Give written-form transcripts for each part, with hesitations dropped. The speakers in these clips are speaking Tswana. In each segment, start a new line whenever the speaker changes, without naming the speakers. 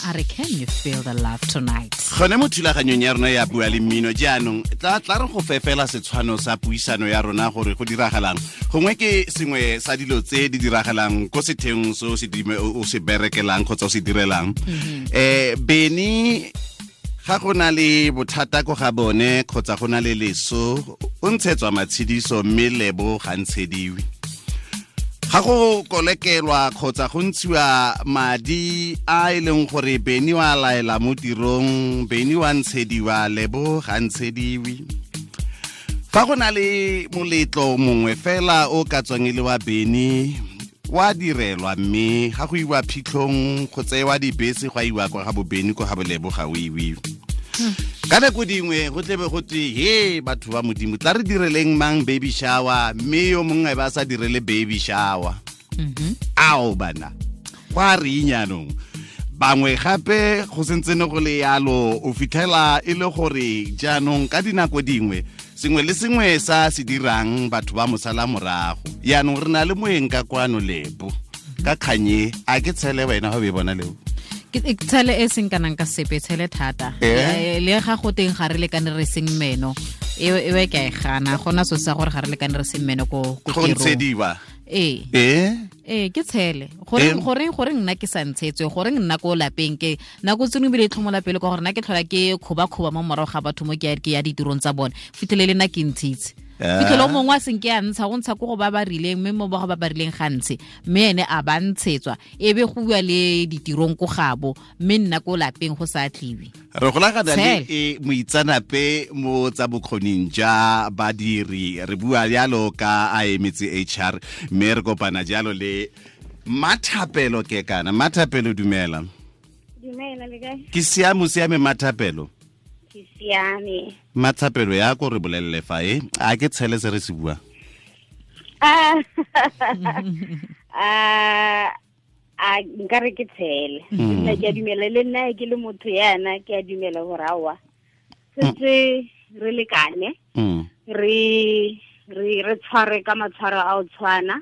A re, "Can you feel the love tonight?"
Gone mo thulaganyong ya rona ya Bua le Mmino jaanong, tla tla re go fefela setshwano sa puisano ya rona gore go diragalang. Gongwe ke sengwe sa dilo tse di diragalang ko setheong se o se berekelang kgotsa o se direlang. Beny ga go na le bothata ko ga bone kgotsa go na le leso, o ntshetswa matshidiso, mme Lebo ga ntshediwe. Ga go kolekelwa kgotsa go ntshiwa madi a e leng gore Beny wa laela mo tirong, Beny wa ntshediwa, Lebo ga ntshediwe. Fa go na le moletlo mongwe fela o ka tswang e le wa Beny, wa direlwa, mme ga go iwa phitlhong go tsewa dibese go a iwa kwa ga boBeny, ko ga boLebo ga o iwe. Ka nako dingwe go tlebe go twe, "He batho ba Modimo, tla re direleng mang baby shower," mme yo mongwe ba sa direle baby shower. Ao bana, go a reng jaanong? Bangwe gape go sentse ne go le yalo, o fitlhela e le gore jaanong ka dinako dingwe sengwe le sengwe sa se dirang batho ba mosala morago. Yaanong re na le moeng ka kwano, Lebo, ka kganye. A ke tshele wena ga o e bona, Lebo?
Ke tshele e seng kanang ka sepe, tshele thata. Le ga go teng ga re lekane re seng meno, e e ke a e gana. Gona so sa gore ga re lekane re seng meno ko
go
tirong.
Ntshediwa.
Ee. Ee, ke tshele. Goreng nna ke sa ntshetswe? Goreng nna ko lapeng ke nako tse dingwe ebile e tlhomola pele ka gore nna ke tlhola ke kgoba-kgoba mo morago ga batho mo ke ya ditirong tsa bone, fitlhele le nna ke ntshitse. Fitlhele o mongwe a seng ke a ntsha, go ntsha ko go ba ba rileng, mme mo ba go ba ba rileng ga ntshe, mme ene a ba ntshetswa, e be go bua le ditirong ko gabo, mme nna ko lapeng go sa tliwe.
Re golagana le
Tshele.
e moitsanape mo tsa bokgoning ja badiri, re bua jalo ka a emetse HR, mme re kopana jalo le Mathapelo. Ke kana Mathapelo, dumela.
Dumela, le kae?
Ke siame, siame, Mathapelo.
Ke siame.
Mathapelo, ya ko re bolelele fa e a ke tshele se re se buang?
Ah, a nkare ke tshele. Nna ke a dumela, le nna ke le motho yana ke a dumela gore aowa, setse re lekane, re tshware ka matshwaro a o tshwana,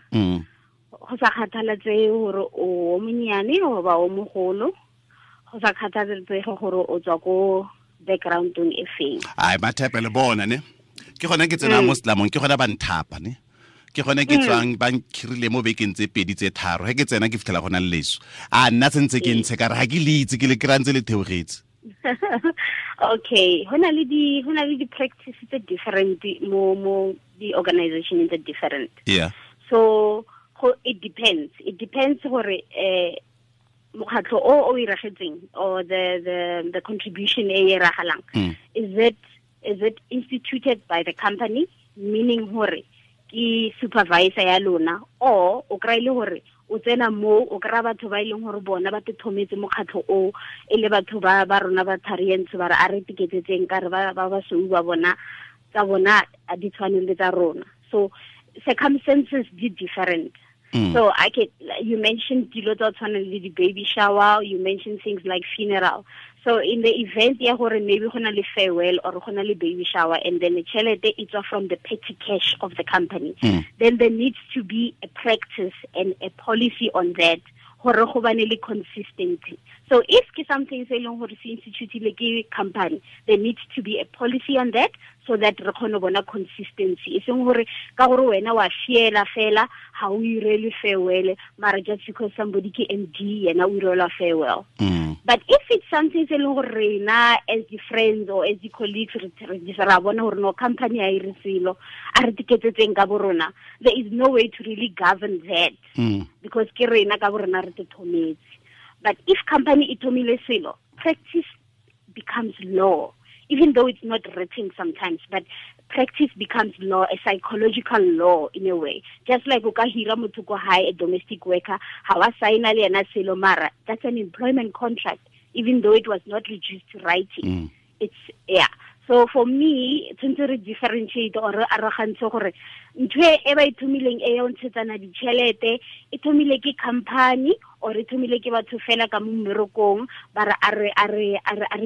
go sa kgathaletsege gore o o monnyane goba o mogolo, go sa kgathaletsege gore o tswa ko backgroundong e feng.
Ai Mathapelo, bona ne ke gone ke tsena mo setlamong, ke gone ba nthapa ne ke gone ke tswang, ba nkhirile mo bekeng tse 2 tse 3. Ge ke tsena ke fitlhela go na le leso, a nna sentse ke ntshe ka re ga ke le itse, ke le kry-a ntse le theogetse.
Okay, go na le di practice tse different mo di organization tse different. So go it depends gore mokgatlho o o iragetseng or the contribution e e iragalang, is it instituted by the company, meaning hore ke supervisor ya lona, or o kry le hore o tsena mo o kry-a batho ba e leng gore bona ba te thometse mokgatlho o, e le batho ba rona ba tharientsho, ba re a re tiketsetseng ka re ba basweu ba bona tsa bona a di tshwane le tsa rona. So circumstances di different. So I can you mentioned dilo tsa tshwana le di baby shower, you mentioned things like funeral. So in the event ya gore maybe go na le farewell or go na le baby shower, and then the tšhelete e tswa from the petty cash of the company, then there needs to be a practice and a policy on that gore go bane le consistency. So if ke something se e leng gore se institutile ke company, there needs to be a policy on that so that re kgone go bona consistency, e seng gore ka gore wena wa fiela fela ga o irele farewell, mara just because somebody ke MD, yena o irelwa farewell. But if it's something se e leng gore rena as the friends or as the colleagues re ra bona gore no, company ha e re selo, a re tiketsetseng ka bo rona, there is no way to really govern that because ke rena ka bo rena re te thometse. But if company e thomile selo, practice becomes law, even though it's not written sometimes, but practice becomes law, a psychological law in a way. Just like o ka hira motho ko hae, a domestic worker, ha wa signa le yena selo, mara that's an employment contract, even though it was not reduced to writing. It's, yeah, so for me tshwanetse re differentiate or re arogantshe gore ntho e ba e thomileng e ya o ntshetsana ditšhelete e thomile ke company or e thomile ke batho fela ka mo mmerekong, ba re a re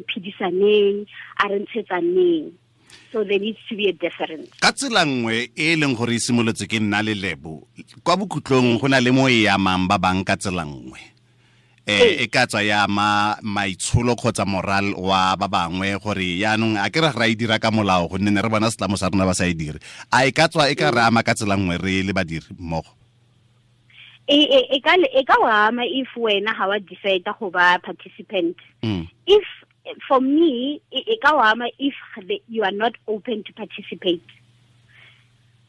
phedisaneng, a re ntshetsaneng. So there needs to be a difference.
Ka tsela nngwe e e leng gore e simolotse ke nna le Lebo, kwa bokhutlong go na le mo e amang ba bang ka tsela nngwe. E ka tswa ya ma maitsholo kgotsa moral wa ba bangwe gore yaanong a ke re ra e dira ka molao gonne ne re bona setlamo sa rona ba sa e dire. A e ka tswa e ka re ama ka tsela nngwe re le badiri mmogo?
E ka wa ama if wena ga wa decide go ba participant. If for me e ka wa ama if you are not open to participate.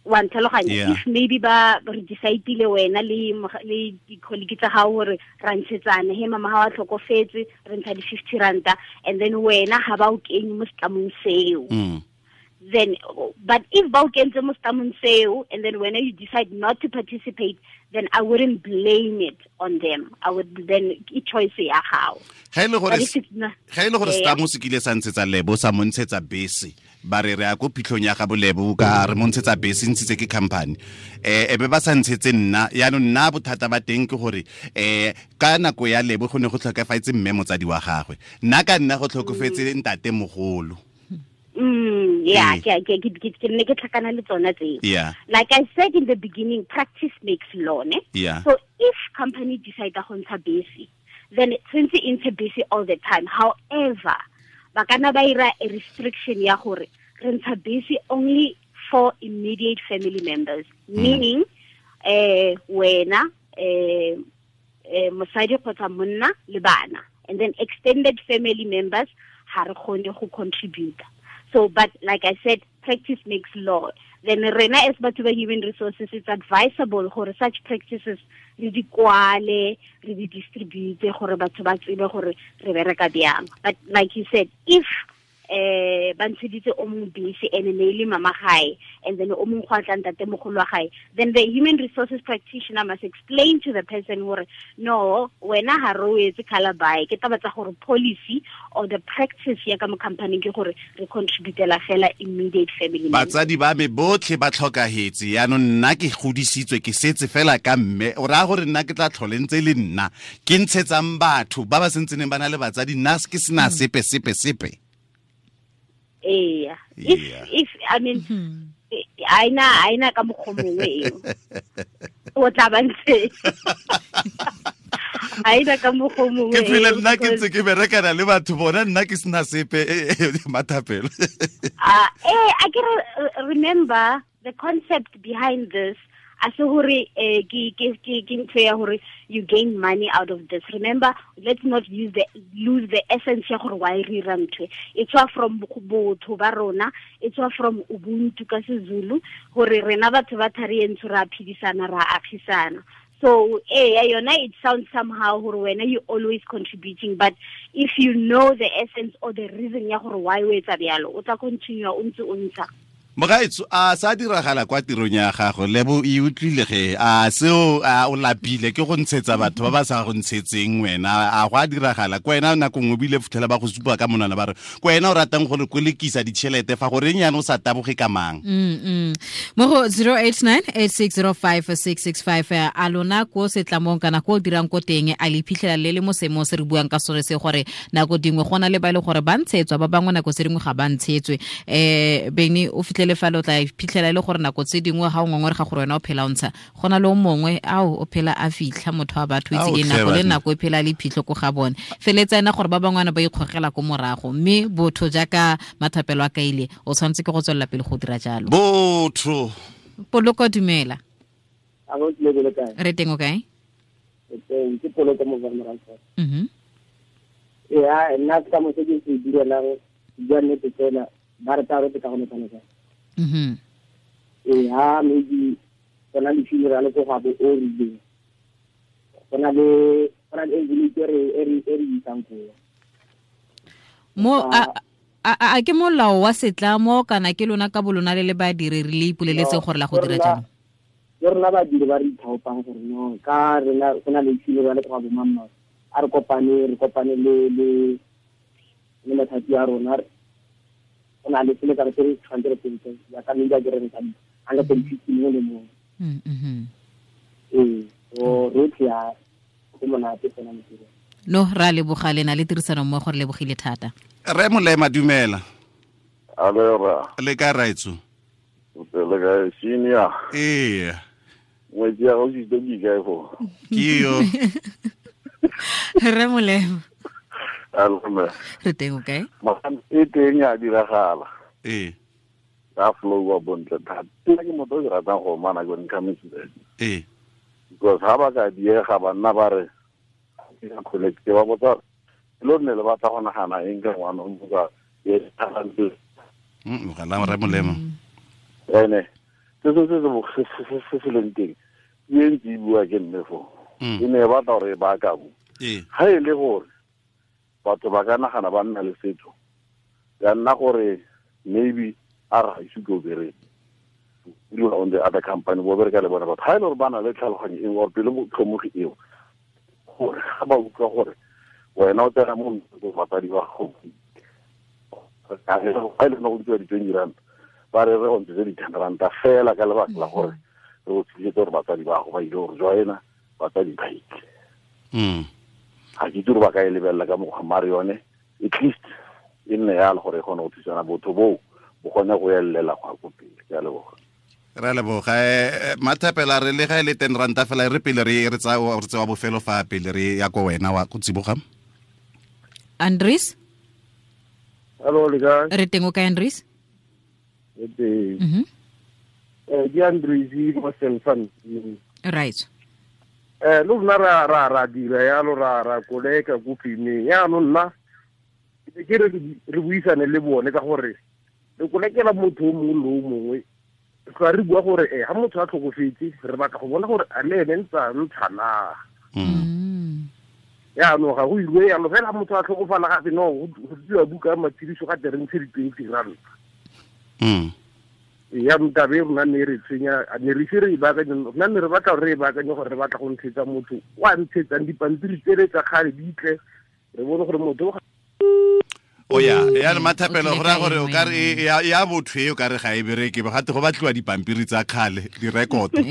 Wa ntlhaloganya? If maybe ba re decide-ile wena le di-colleague tsa gago gore ra ntshetsana, he mama ga wa tlhokofetse re ntsha di-50 ranta, and then wena ga ba o kenye mo setlamong seo. Then, but if ba o kentse mo setlamong seo and then when you decide not to participate, then I wouldn't blame it on them. I would then e choice ya gago.
Ga ile gore setlamo se kile sa ntshetsa Lebo, sa mo ntshetsa bese, ba re re ya ko phitlhong ya ga bolebo ka re mo ntshetsa bese, ntshitse ke company, e be ba sa ntshetse nna. Yaanong nna bothata ba teng ke gore ka nako ya Lebo go ne go tlhokafaetse mme motsadi wa gagwe, nna ka nna go tlhokofetse ntate mogolo.
Yeah, ke ne ke tlhakana le tsona tseo. Like I said in the beginning, practice makes law, ne?
Yeah.
So if company decide go ntsha bese, then tshwantse e ntshe bese all the time. However, ba kana ba ira a restriction ya gore re ntsha bese only for immediate family members, meaning wena mosadi kgotsa monna le bana, and then extended family members ha re kgone go contribute. So, but like I said, practice makes law. Then rena as batho ba human resources, it's advisable gore such practices re di kwale, re di distribute gore batho ba tsebe gore re bereka bjang. But like you said, if ba ntsheditse o mongwe bese and ne le mama gae, and then o mongwe go a tla ntate mogolo wa gae, then the human resources practitioner must explain to the person gore no, wena ha re o etse calabai, ke taba tsa gore policy or the practice ya ka mo company ke gore re contributela fela immediate family members.
Batsadi ba me botlhe ba tlhokahetse, yaanong nna ke godisitswe ke setse fela ka mme, o raya gore nna ke tla tlhole ntse le nna ke ntshetsang batho ba ba sentseneng ba na le batsadi, nna ke sena sepe sepe sepe.
Yeah. If I mean, aina ka mokgwa mongwe eo o tla ba ntse aina ka mokgwa mongwe
ke phela nna ke ntse ke berekana le batho bona nna ke sena sepe mathapelo.
I can remember the concept behind this. A se hore ke ntho ya hore you gain money out of this. Remember, let's not lose the essence ya gore why re ra ntho e tswa from botho ba rona, e tswa from ubuntu ka seZulu, gore rena batho ba thari entsho ra phedisana, ra agisana. So yona it sounds somehow gore wena you always contributing, but if you know the essence or the reason ya gore why o etsa bjalo, o tla continue o ntse o ntsha.
Mogaetso, a sa diragala kwa tirong ya gago, Lebo e utlwile ge a seo a o lapile ke go ntshetsa batho ba ba sa go ntshetseng wena, a go a diragala kwa wena nako nngwe bile futhela ba go supa ka monwana ba re kwa wena o ratang gore kolekisa ditšhelete fa goreng yana o sa taboge ka mang.
Mo go 0898605665 a lona ko setlamong kana ko dirang ko teng, a le phitlhela le le mo seemong se re buang ka sone se gore nako dingwe go na le ba ile gore ba ntshetswa, ba bangwe nako tse dingwe ga ba ntshetswe. Bene o fitlhele fa lo tla phitlhela le gore nako tse dingwe ga o ngongore ga gore wena o phela o ntsha, go na le o mongwe ao o phela a fitlha motho wa batho itse ke nako le nako e phela le phitlho ko ga bone, feletsa ena gore ba bangwana ba ikgogela ko morago, mme botho jaaka mathapelo a kaile o tshwanetse ke go tswelela pele go dira jalo.
Botho
Poloko, dumela.
A go tlebele kae?
Re teng o kae?
Teng ke Poloko mo Vermaak. Ya nna ka mo se ke se direlang ja nnete tsela ba re tsa re ka go netana. Ha maybe gona le funeral ko ga bo o rileng, gona le envelope e re isang ko
mo a ke molao wa setlamo kana ke lona ka bolona le le badiri re le ipoleletseng gore la go dira jalo?
Ke rona badiri ba re ithaopang gore no ka rena gona le funeral ko ga bo mamma, a re kopane le le mathapi a rona, o na le sele ka re tshwanetse re tsentse ya ka mme ke re ntsha 150 mo le mo. O rotlhe ya go monate tsena mo tirong.
No, ra leboga le na le tirisano mmogo, re lebogile thata.
Re Molema, dumela.
Alera.
Le ka raitso?
Le ka senior.
Ee.
Ngwetsi ya gago ke kae foo?
Ke yo.
Re molemo.
Alme.
Re teng o kae?
E teng ya diragala.
Ee.
Ka flow wa bontle thata. Ke motho o ke ratang go mana go nkametse.
Ee.
Because ha ba ka diega banna ba re ke collect ke ba botsa lo nne le batla go nagana eng ka ngwana o motsa ye talente.
Mogala re molemo.
Ene se se leng teng e ntse e bua ke mme fo. E ne ba batla gore ba ka bo. Ha e le gore batho ba ka nagana ba nna le setho ya nna gore maybe a ra ise go bereka on the other company bo bereka le bona batho ha e le gore ba na le tlhaloganyo eng or pele tlhomogi eo gore ga ba utlwa gore wena o tsena mo batsadi ba gago ga e le go ntshiwa di-20 rand ba re re go ntshetse di-10 ranta fela ka lebaka la gore re go thusetse gore batsadi ba gago ba ile gore joina batsadi ba ile. Ga ke itse gore ba ka e lebelela ka mokgwa mare yone at least e nne yalo gore e kgone go thusana botho boo bo kgone go elela go ya ko pele. Ke a leboga.
Re a leboga. Mathapela re le ga e le 10 ranta fela re pele re tsewa bofelo fa pele re ya ko wena wa go tsiboga.
Andries?
Hello, le kae?
Re teng o kae Andries?
Re teng. Ke Andries mo Selfan.
Right.
Lo rona ra dira yalo ra koleka ko femeng yaanong nna ke re re buisane le bone ka gore re kolekela motho o mongwe le o mongwe tla re bua gore ha motho a tlhokofetse re batla go bona gore a le ene ntse a ntsha na. Yaanong ga go ilwe yalo fela motho a tlhokofala gape no go tsiwa buka ya matshediso ga tere ntshe di-20 ranta. Ya ntabe rona ne re tshwenya ne re ise re e baakanye rona ne re batla gore re e baakanye gore re batla go ntshetsa motho o a ntshetsang dipampiri tsele tsa kgale di tle re bone gore motho
o ya ya Mathapelo go raya gore o ka re ya botho e o ka re ga e bereke gate go batliwa dipampiri tsa kgale direkoto.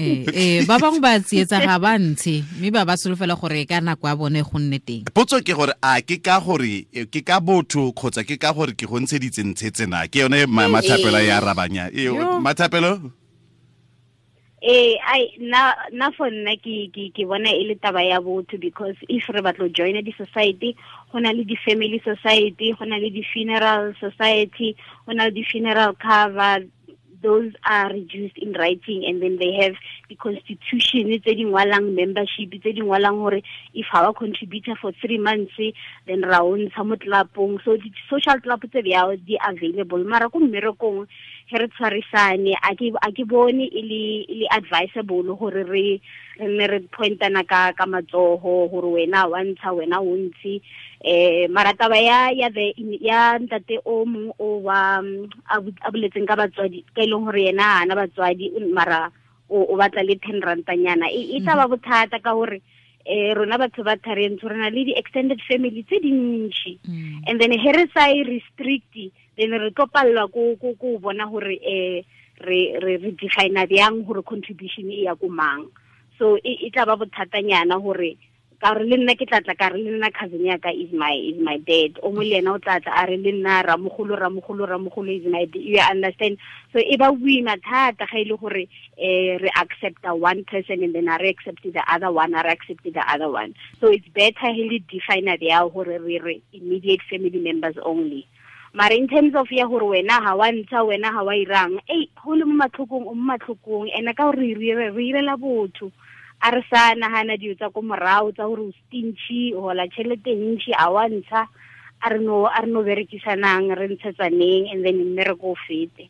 Ba bangwe ba tsietsa ga ba ntshe mme ba ba solofela gore ka nako ya bone go nne teng.
Potso ke gore a ke ka gore ke ka botho kgotsa ke ka gore ke go ntsheditse ntshetse na ke yone Mathapelo ya arabanya. Mathapelo?
Ai na for nna ke bona e le taba ya botho because if re batlo join di society go na le di family society go na le di funeral society go na le di funeral cover. Those are reduced in writing and then they have the constitution tse di ngwalang membership tse di ngwalang gore if our contributor for 3 months then ra o ntsha mo tlelapong. So di social club tse bjao di available mara ko mmerekong he re tshwarisane a ke bone e le advisable gore re nne re pointana ka matsogo gore wena wa ntsha wena o ntshi. Mara taba ya ntate o mongwe o wa a boletseng ka batswadi ka e leng gore yena ana batswadi mara o batla le 10 rantanyana e tla ba bothata ka gore rona batho ba tharentsho re na le di-extended family tse dintši and then he re sa e restrict then re tlo pallwa ko bona gore re define bjang gore contribution e ya ko mang. So e tla ba bothatanyana gore ka re le nna ke tlatla ka re le nna cousin ya ka is my dad o mo le yena o tlatla a re le nna ramogolo is my dad, you understand. So e ba boima thata ga ile gore re accept one person and then re accept the other one re accept the other one. So it's better he le define ya gore re immediate family members only. Mara in terms of ya gore wena ha wa ntsha wena ha wa irang go le mo matlhokong o mo matlhokong ene ka gore re irela botho a re sa nagana dilo tsa ko morago tsa gore o stingy o hola tšhelete ntši a wa ntsha a re no berekisanang re ntshetsaneng and then mmereko o fete.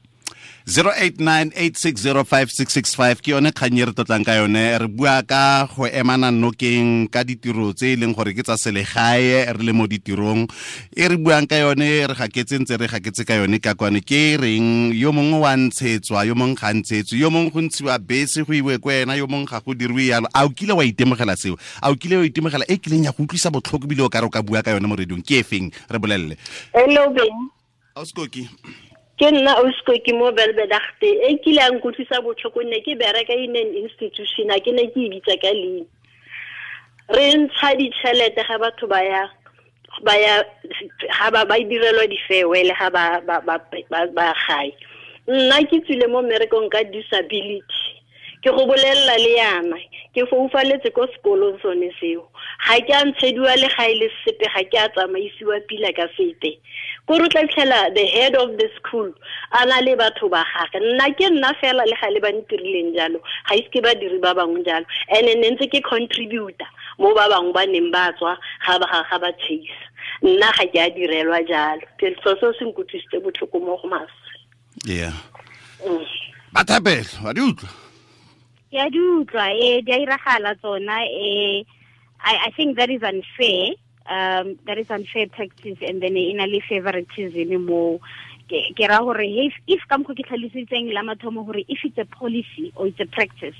0898605665 ke yone kgang e re tlotlang ka yone re bua ka go emana nokeng ka ditiro tse e leng gore ke tsa selegae re le mo ditirong e re buang ka yone re gaketse ntse re gaketse ka yone ka kwane ke reng yo mongwe wa ntshetswa yo mongwe ga ntshetswe yo mongwe go ntshiwa bese go iwe ko wena yo mongwe ga go dirwe yalo. A o kile wa itemogela seo? A o kile wa itemogela e kileng ya go utlwisa botlhoko bile o ka re o ka bua ka yone mo radiong ke efeng re bolelele?
Hello Ben.
Auskoki.
Ke nna Auskoki mo Belbedagte e kile a nkutlwisa botlhoko nne ke bereka in an institution a ke ne ke e bitsa ka leina. Re ntsha ditšhelete ga batho ba ya ga ba direlwa di-farewell ga ba gae. Nna ke tswile mo mmerekong ka disability. Ke go bolelela le yana ke foufaletse ko sekolong sone seo. Ga ke a ntshediwa le ga e le sepe, ga ke a tsamaisiwa pila ka sepe. Ko re tla fitlhela the head of the school a na le batho ba gagwe. Nna ke nna fela le ga le ba ntirileng jalo, ga ise ke badiri ba bangwe jalo. And-e ne ntse ke contributor mo ba bangwe ba neng ba tswa ga ba chase. Nna ga ke a direlwa jalo. So seo se nkutlwisitse botlhoko mo go maswe.
Yeah. Ba thapelo, wa di utlwa?
Ke a di utlwa, di a iragala tsona, I think that is unfair. That is unfair practice, and then e na le favoritism mo. Ke ra gore if ka mokgwa ke tlhalositseng la mathomo gore if it's a policy or it's a practice,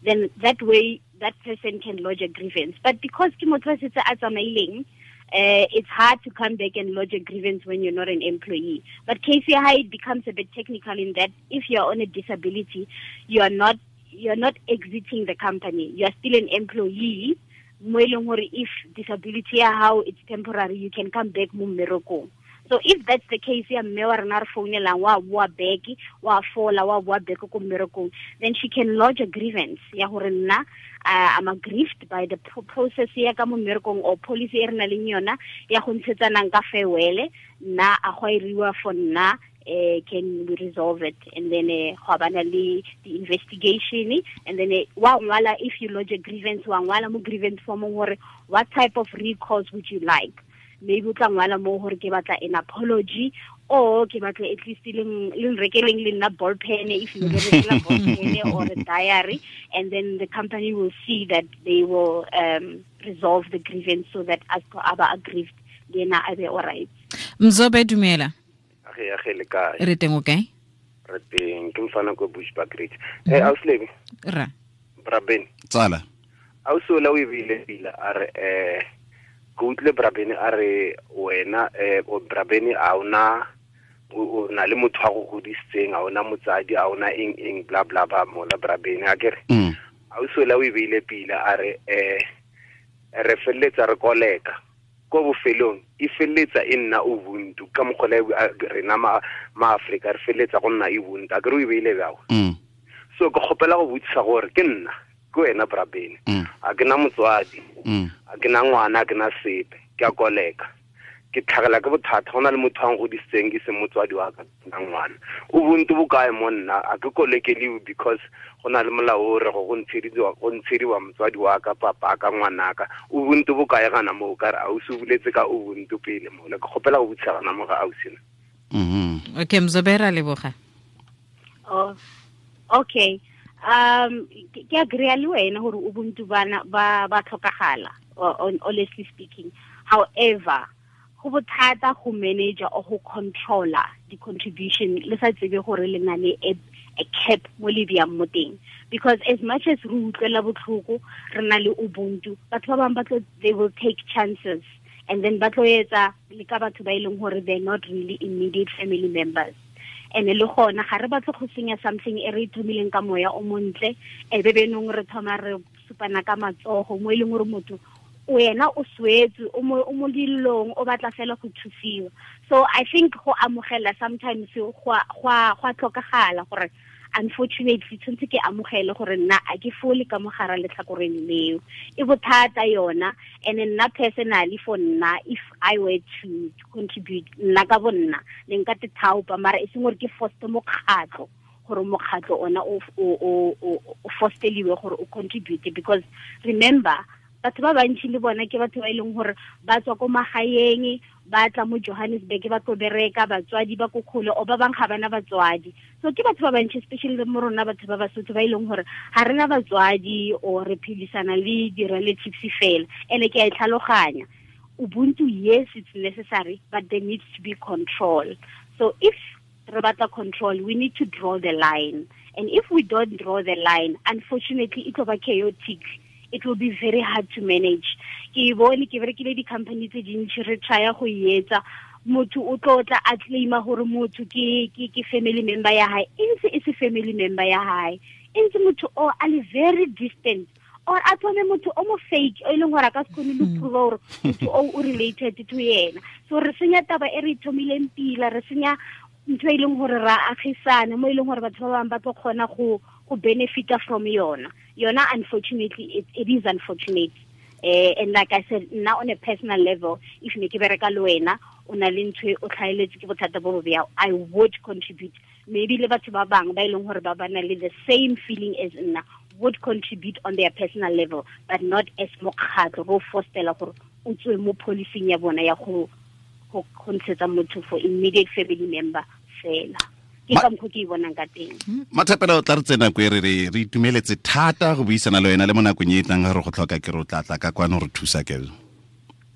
then that way that person can lodge a grievance. But because ke motho a setse a tsamaileng, it's hard to come back and lodge a grievance when you're not an employee. But KCI, it becomes a bit technical in that if you're on a disability, you're not exiting the company. You are still an employee. Mo e leng gore if disability ya hao it's temporary, you can come back mo mmerekong. So if that's the case, ya mme wa rena re founelang wa boa back, wa fola, wa boa back ko mmerekong, then she can lodge a grievance ya gore nna I'm aggrieved by the process ya ka mo mmerekong or policy e re nang le yona ya go ntshetsanang ka farewell, nna a go iriwa for nna, can we resolve it? And then go bana le the investigation, and then wa ngwala if you lodge a grievance, wa ngwala mo grievance form gore what type of recourse would you like? Maybe o tla ngwala mo gore ke batla an apology, or ke batla at least le nrekeleng le nna ball pen, if you get a ball pen or a diary, and then the company will see that they will resolve the grievance so that as aba aggrieved le ena a be all right.
Mzobe, dumela.
Age le kae?
Re teng, o kae?
Re teng, ke mfana ko Bushbuckridge. Auslebe.
Ra.
Braben.
Tsala.
Ausola o e beile pila a re ke utlwile Brabene a re wena o Brabene a ona o na le motho wa go godisitseng, a ona motsadi, a ona eng eng bla bla ba mola Brabene a kere. Ausola o e beile pila a re re felletsa re koleka ko bofelong e felletsa e nna ubuntu ka mokgwa rena ma Afrika re felletsa go nna ubuntu a kere o e beile bjao. So ke kgopela go botsisa gore ke nna ke wena Brabene, a ke na motswadi, a ke na ngwana, a ke na sepe, ke a koleka, ke tlhagela ke bothata, go na le motho a ngodisitseng ke se motswadi wa ka na ngwana. Ubuntu bo kae mo nna? A ke kolekeliwe because go na le molao o re go ntshediwa motswadi wa ka, papa ka, ngwanaka. Ubuntu bo kae gana mo? Ka re ausi o buletse ka ubuntu pele mo. Ke kgopela go botsisa gana mo ga ausi na.
Okay, Mzobe, ra leboga.
Oh, okay. Ke agree le wena gore ubuntu bana ba tlhokagala, honestly speaking. However, go bothata go manager or go controller the contribution le sa tsebe gore le na le a cap mo le biyang mo teng, because as much as re utlwela botlhoko re na le ubuntu, batho ba bangwe ba tlo, they will take chances, and then ba tlo etsa le ka batho ba e leng gore they're not really immediate family members. And le gona ga re batle go senya something e re thomileng ka moya o montle, e be benong re thoma re supana ka matsogo mo e leng gore motho wena o swetse o mo dilong o batla fela go thusiwa. So I think go amogela sometimes go a tlhokagala gore unfortunately tshwanetse ke amogele gore nna a ke fole ka mogara letlhakoreng leo, e bothata yona. And nna personally, for nna, if I were to contribute nna ka bo nna ne nka te thaopa, mara e seng gore ke foste mokgatlho gore mokgatlho ona o fosteliwe gore o contribute, because remember batho ba bantsi le bona ke batho ba e leng gore ba tswa ko magaeng, ba tla mo Johannesburg ba tlo bereka, batswadi ba ko kgole, o ba bang ga bana batswadi. So ke batho ba bantsi, especially mo rona batho ba Basotho ba e leng gore ga rena batswadi or re phedisana le di-relatives fela. And ke a e tlhaloganya, ubuntu, yes, it's necessary, but there needs to be control. So if re batla control, we need to draw the line. And if we don't draw the line, unfortunately, it will be chaotic. It will be very hard to manage. Ke bone ke berekile di-company tse dintsi re try-a go etsa, motho o tlo tla a claima gore motho ke family member ya hae, e ntse e se family member ya hae, e ntse motho o a le very distant, or a thome motho o mo fake o e leng gore a ka se kgone le prove gore motho o related to yena. So re senya taba e re thomileng pila, re senya ntho e leng gore ra agisana mo e leng gore batho ba bangwe ba tlo kgona go benefita from yona. Yona, unfortunately, it is unfortunate. And like I said, nna on a personal level, if ne ke bereka le wena, o na le ntho o tlhaeletse ke bothata bo bo bjao, I would contribute. Maybe le batho ba bang ba e leng gore ba ba na le the same feeling as nna would contribute on their personal level, but not as mokgatlho go fostela gore o tswe mo policing ya bona ya go ntshetsa motho for immediate family member fela. Ke ka mokgwa ke e bonang ka teng.
Mathapelo, tla re tsena ko e re itumeletse thata go buisana le wena le mo nakong e e tlang ga re go tlhoka ke re o tla tla ka kwano re thusa ke.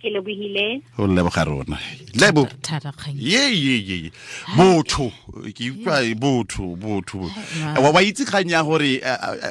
Ke lebohile.
Go leboga rona. Lebo.
Thata kgang.
Ye. Botho, ke utlwa botho. Wa itse kgang ya gore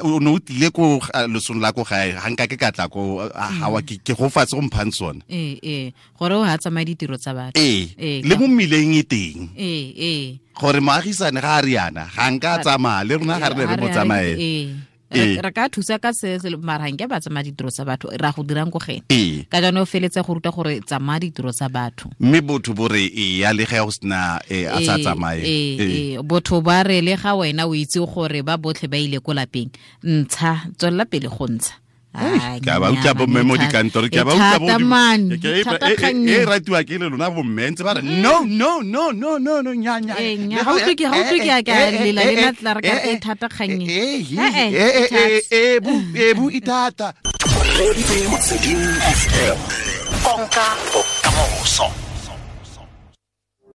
o ne o tlile ko losong la ko gae, ga nka ke ka tla ko ga wa ke go fatshe go mphang sone.
Ee. Gore o ha tsamaye ditiro tsa batho.
Ee. Le mo mmileng e teng.
Ee.
Gore moagisane ga a riana, ga nka tsamaya le rona ga re ne re mo tsamaye.
Re ka thusa ka se mara nke ba tsamaya ditiro tsa batho ra go dirang ko gene. Ka jaanong o feletse go ruta gore tsamaya ditiro tsa batho.
Mme botho bo re e ya le ga go sena a sa tsamaye.
Botho ba re le ga wena o itse gore ba botlhe ba ile ko lapeng, ntsha tswella pele go ntsha.
Ke a ba utlwa bomme mo dikantoro, ke a ba utlwa bo e ratiwa ke le lona bomme ntse ba re no no no no no no nya nya.
Ga utlwe ke a ka lela le na tla re ka e thata kgang
e. E bu itata.
Konka bokamoso.